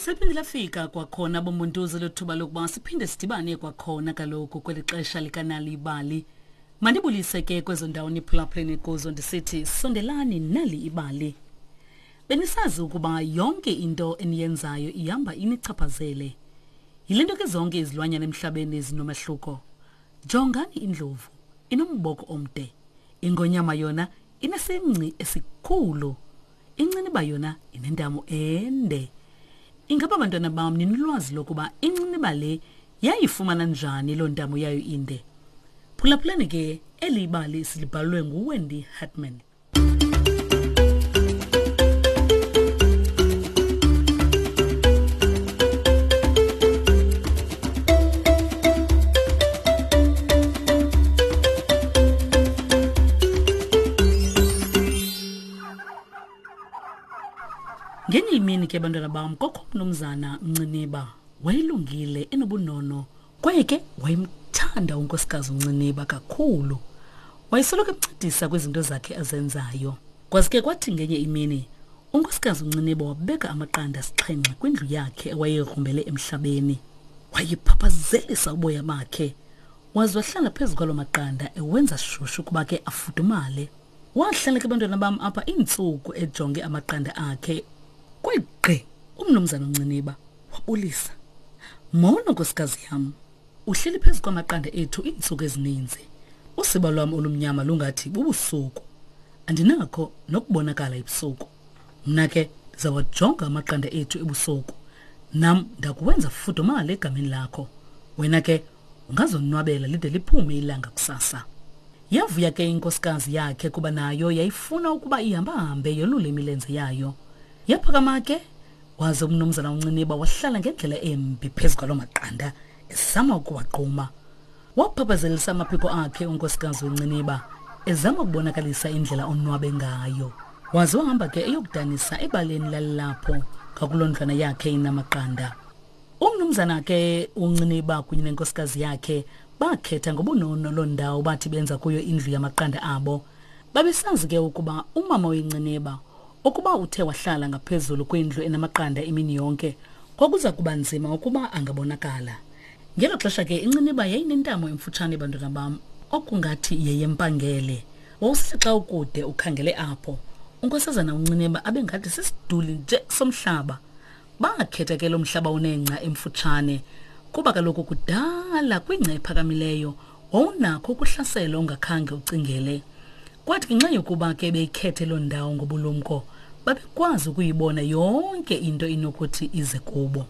Seliphinde lafika kwakhona bombuntuzi lothuba lokuba siphinde sidibane kwakhona kaloku kweli xesha likanali ibali. Mandibulise ke kwezo ndawo niphulaphuleni kuzo ndisithi sondelani nali ibali. Benisazi ukuba yonke into eniyenzayo ihamba inichaphazele. Yile nto ke zonke izilwanyana emhlabeni zinomahluko. Jongani indlovu, inomboko omde. Ingonyama yona inesingci esikhulu. Inciniba yona inentamo ende. Ingaba bantwana bam ninolwazi lokuba inciniba le yayifumana njani loo ntamo yayo inde? Phulaphulani ke eli bali silibhalwe nguWendy Hartman. Ngenye imini ke bantwana bam kokho umnumzana Mnciniba wayelungile enobunono kwaye ke wayemthanda unkosikazi uNciniba kakhulu. Wayesoloko emncedisa kwizinto zakhe azenzayo. Kwaze ke kwathi ngenye imini unkosikazi uNciniba wabeka amaqanda asixhenxe kwindlu yakhe awayegrumbele emhlabeni. Wayephaphazelisa uboya bakhe waze wahlala phezu kwaloo maqanda ewenza shushu ukuba ke afudumale. Wahlala ke bantwana bam apha iintsuku ejonge amaqanda akhe. Kwegqi umnumzana uNciniba wabulisa. Molo nkosikazi yam. Uhleli phezu kwamaqanda ethu iintsuku ezininzi. Usiba lwam olumnyama lungathi bubusuku. Andinakho nokubonakala ebusuku. Mna ke ndizawajonga amaqanda ethu ebusuku. Nam ndakuwenza fudumale egameni lakho. Wena ke ungazonwabela lide liphume ilanga kusasa. Yavuya ke inkosikazi yakhe kuba nayo yayifuna ukuba ihambahambe yolule imilenze yayo. Yaphakama ke waze umnumzana uNciniba wahlala ngendlela embi phezu kwaloo maqanda ezama ukuwagquma. Waphaphazelisa amaphiko akhe unkosikazi wenciniba ezama ukubonakalisa indlela onwabe ngayo. Waze wahamba ke eyokudanisa ebaleni lalilapho ngakuloo ndlwana yakhe inamaqanda. Umnumzana ke uNciniba kunye nenkosikazi yakhe bakhetha ngobunono loo ndawo bathi benza kuyo indlu yamaqanda abo. Babesazi ke ukuba umama wenciniba ukuba uthe wahlala ngaphezulu kwindlu enamaqanda imini yonke kwakuza kuba nzima ukuba angabonakala. Ngelo xesha ke inciniba yayinentamo emfutshane bantwana bam okungathi yeyempangele. Wawusithi xa ukude ukhangele apho unkosazana uNciniba abe ngathi sisiduli nje somhlaba. Bakhetha ke lo mhlaba unengca emfutshane kuba kaloku kudala kwingca ephakamileyo wawunakho ukuhlaselwa ungakhange ucingele. Kwathi ngenxa yokuba ke beyikhethe loo ndawo ngobulumko, babekwazi ukuyibona yonke into inokuthi ize kubo.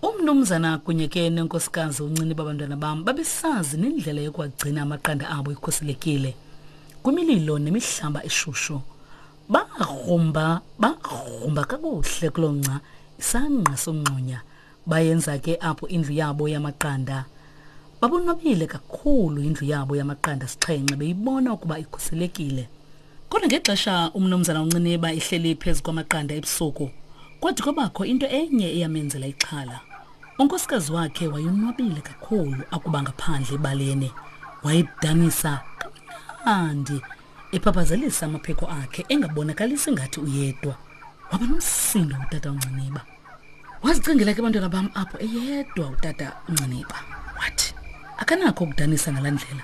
Umnumzana kunye ke nenkosikazi uNcini babantwana bam babesazi nendlela yokuwagcina amaqanda abo ekhuselekile kwimililo nemihlaba eshushu. Bagrumba, bagrumba kakuhle kuloo ngca isangqa somngxunya. Bayenza ke apho indlu yabo yamaqanda. Babonwabile kakhulu indlu yabo yamaqanda sixhenxe beyibona ukuba ikhuselekile. Kodwa ngexesha umnumzana uNciniba ehleli phezu kwamaqanda ebusuku, kwathi kwabakho into enye eyamenzela ixhala. Unkosikazi wakhe wayonwabile kakhulu akuba ngaphandle ebaleni. Wayedanisa kamnandi ephaphazelisa amaphiko akhe engabonakalisi ngathi uyedwa. Waba nomsindo utata uNciniba. Wazicingela ke bantwana bam apho eyedwa utata uNciniba. Wathi akanakho ukudanisa ngalaa ndlela.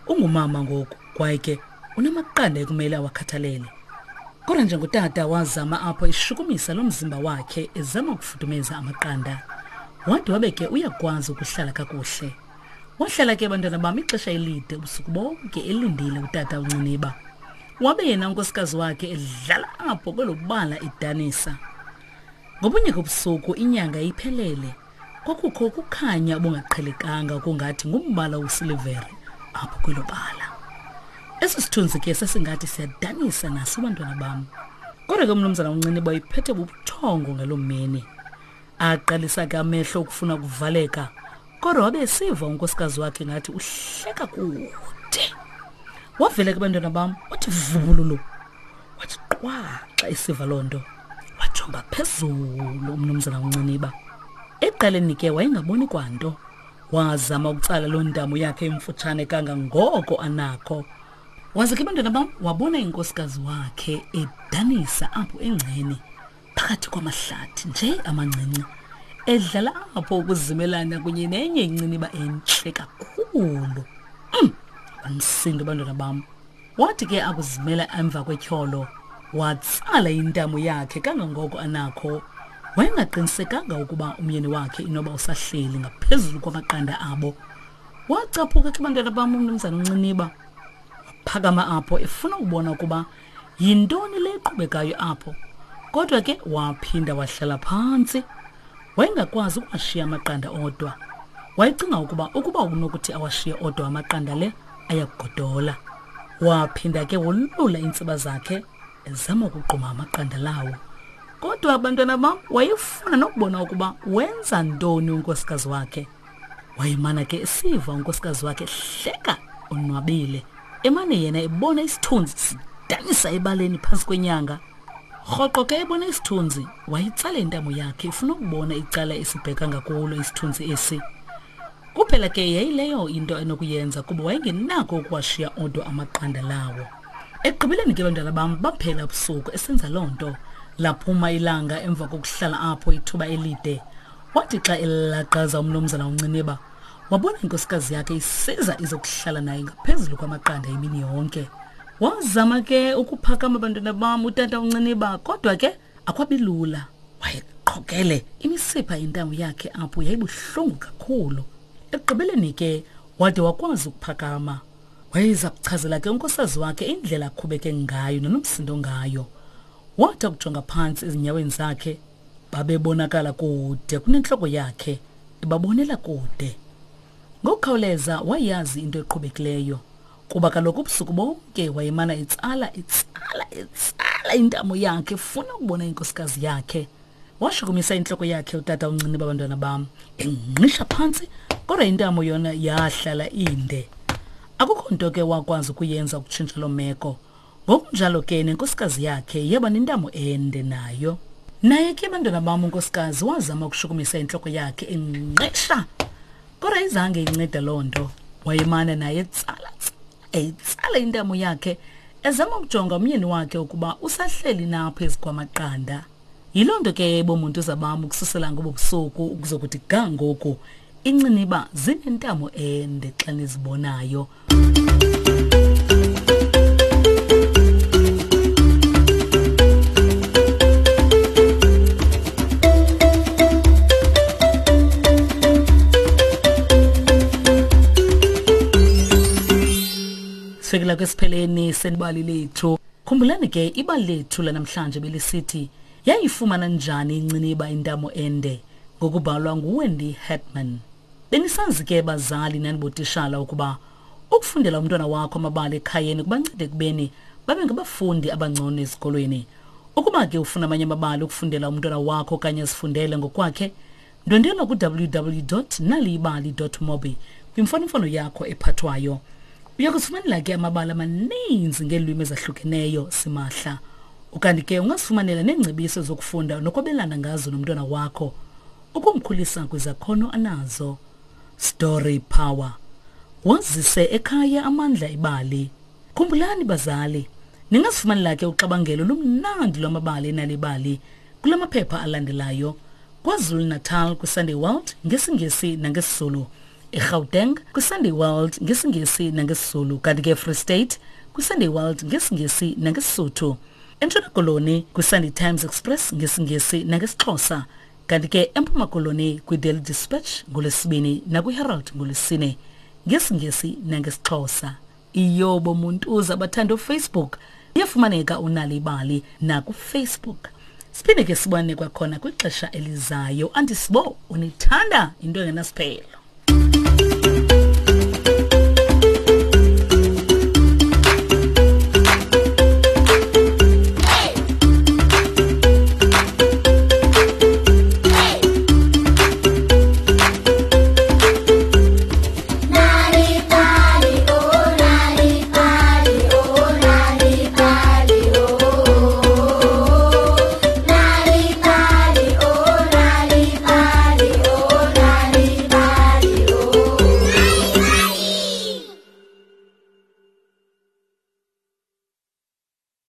Ungumama ngoku kwaye ke unamaqanda ekumele awakhathalele. Kodwa njengotata wazama apho eshukumisa lo mzimba wakhe ezama ukufudumeza amaqanda. Wade wabe ke uyakwazi ukuhlala kakuhle. Wahlala ke bantwana bam ixesha elide ubusuku bonke elindile utata uNciniba. Wabe yena unkosikazi wakhe edlala apho kwelo bala edanisa. Ngobunye kobusuku inyanga iphelele. Kwakukho ukukhanya obungaqhelekanga okungathi ngumbala wesilivere apho kwelo bala. Esi sithunzi ke sasingathi siyadanisa naso bantwana bam. Kodwa ke umnumzana uNciniba iphethe bubuthongo ngaloo mini. Aqalisa ke amehlo ukufuna ukuvaleka kodwa wabe esiva unkosikazi wakhe ngathi uhleka kude. Wavela ke bantwana bam wathi vubululu wathi qwa xa esiva loo nto wajonga phezulu umnumzana uNciniba. Ekuqaleni ke wayengaboni kwanto. Wazama ukutsala loo ntamo yakhe emfutshane kangangoko anakho. Waze ke bantwana bam wabona inkosikazi wakhe edanisa apho engceni. phakathi kwamahlathi nje amancinci edlala apho ukuzimelana kunye nenye inciniba entle kakhulu. Bamsindo abantwana bam. Wathi ke akuzimela emva kwetyholo, watsala intamo yakhe kangangoko anakho. Wayengaqinisekanga ukuba umyeni wakhe inoba usahleli ngaphezulu kwamaqanda abo. Wacaphuka ke bantwana bam umnumzana uNciniba. Waphakama apho efuna ukubona ukuba yintoni le iqhubekayo apho. Kodwa ke waphinda wahlala phantsi. Wayengakwazi ukuwashiya amaqanda odwa. Wayecinga ukuba ukuba unokuthi awashiye odwa amaqanda le ayakugodola. Waphinda ke wolula iintsiba zakhe ezama ukugquma amaqanda lawo. Kodwa abantwana bam wayefuna nokubona ukuba wenza ntoni unkosikazi wakhe. Wayemana ke esiva unkosikazi wakhe ehleka onwabile. Emane yena ebona isithunzi sidanisa ebaleni phantsi kwenyanga. Rhoqo ke ebona isithunzi, wayitsala intamo yakhe efuna ukubona icala esibheka ngakulo isithunzi esi. Kuphela ke yayileyo into enokuyenza kuba wayengenako ukuwashiya odwa amaqanda lawo. Ekugqibeleni ke bantwana bam baphela ubusuku esenza loo nto. Laphuma ilanga emva kokuhlala apho ithuba elide. Wathi xa elaqaza umnumzana uNciniba, wabona inkosikazi yakhe isiza izokuhlala naye ngaphezulu kwamaqanda imini yonke. Wazama ke ukuphakama bantwana bam utata uNciniba kodwa ke akwabilula. Wayeqhokele imisipha yentamo yakhe apho yayibuhlungu kakhulu. Ekugqibeleni ke wade wakwazi ukuphakama. Wayeza kuchazela ke unkosikazi wakhe indlela aqhubeke ngayo nonomsindo ngayo. Wathi akujonga phantsi ezinyaweni zakhe babebonakala kude kunentloko yakhe ebabonela kude. Ngokukhawuleza wayazi into eqhubekileyo kuba kaloku ubusuku bonke wayemana etsala etsala etsala intamo yakhe efuna ukubona inkosikazi yakhe. Washukumisa intloko yakhe utata uncinci babantwana bam engqisha phantsi kodwa intamo yona yahlala inde. Akukho nto ke wakwazi ukuyenza ukutshintsha loo meko. Ngokunjalo ke nenkosikazi yakhe yaba nentamo ende nayo. Naye ke bantwana bam unkosikazi wazama ukushukumisa intloko yakhe engqesha kodwa izange inceda loo nto. Wayemana naye etsala eyitsala intamo yakhe ezama ukujonga umyeni wakhe ukuba usahleli na phezu kwamaqanda. Yiloo nto ke bomuntu bam ukususela ngobo busuku ukuzokuthi ga ngoku inciniba zinentamo ende xa nizibonayo. Sifikela kwesipheleni senibali lethu. Khumbulani ke ibali lethu lanamhlanje belisithi yayifumana njani inciniba intamo ende ngokubhalwa nguWendy Hetman. Benisazi ke bazali nanibotishala ukuba ukufundela umntwana wakho amabali ekhayeni kubancede ekubeni babe ngabafundi abangcono ezikolweni. Ukuba ke ufuna amanye amabali ukufundela umntwana wakho okanye azifundele ngokwakhe, ndwendwela ku-www.naliyibali.mobi kwimfonomfono yakho ephathwayo. Uya kuzifumanela ke amabali amaninzi ngeelwimi ezahlukeneyo simahla. Ukanti ke ungazifumanela neengcebiso zokufunda nokwabelana ngazo nomntwana wakho ukumkhulisa kwizakhono anazo. Story Power. Wazise ekhaya amandla ebali. Khumbulani bazali, ningazifumanela ke uxabangelo lumnandi lwamabali enalibali kula maphepha alandelayo. KwaZulu-Natal kwiSunday World ngesiNgesi nangesiZulu. eGauteng kwiSunday World ngesiNgesi nangesiZulu kanti ke eFree State kwiSunday World ngesiNgesi nangeSisuthu. ENtshona Koloni kwiSunday Times Express ngesiNgesi nangesiXhosa kanti ke eMpuma Koloni kwiDaily Dispatch ngoLwesibini nakwiHerald ngoLwesine ngesiNgesi nangesiXhosa. Iyobo Muntuza abathanda uFacebook iyafumaneka unalibali nakuFacebook. Siphinde ke sibone kwakhona kwixesha elizayo. Andisibo unithanda into engenasiphelo.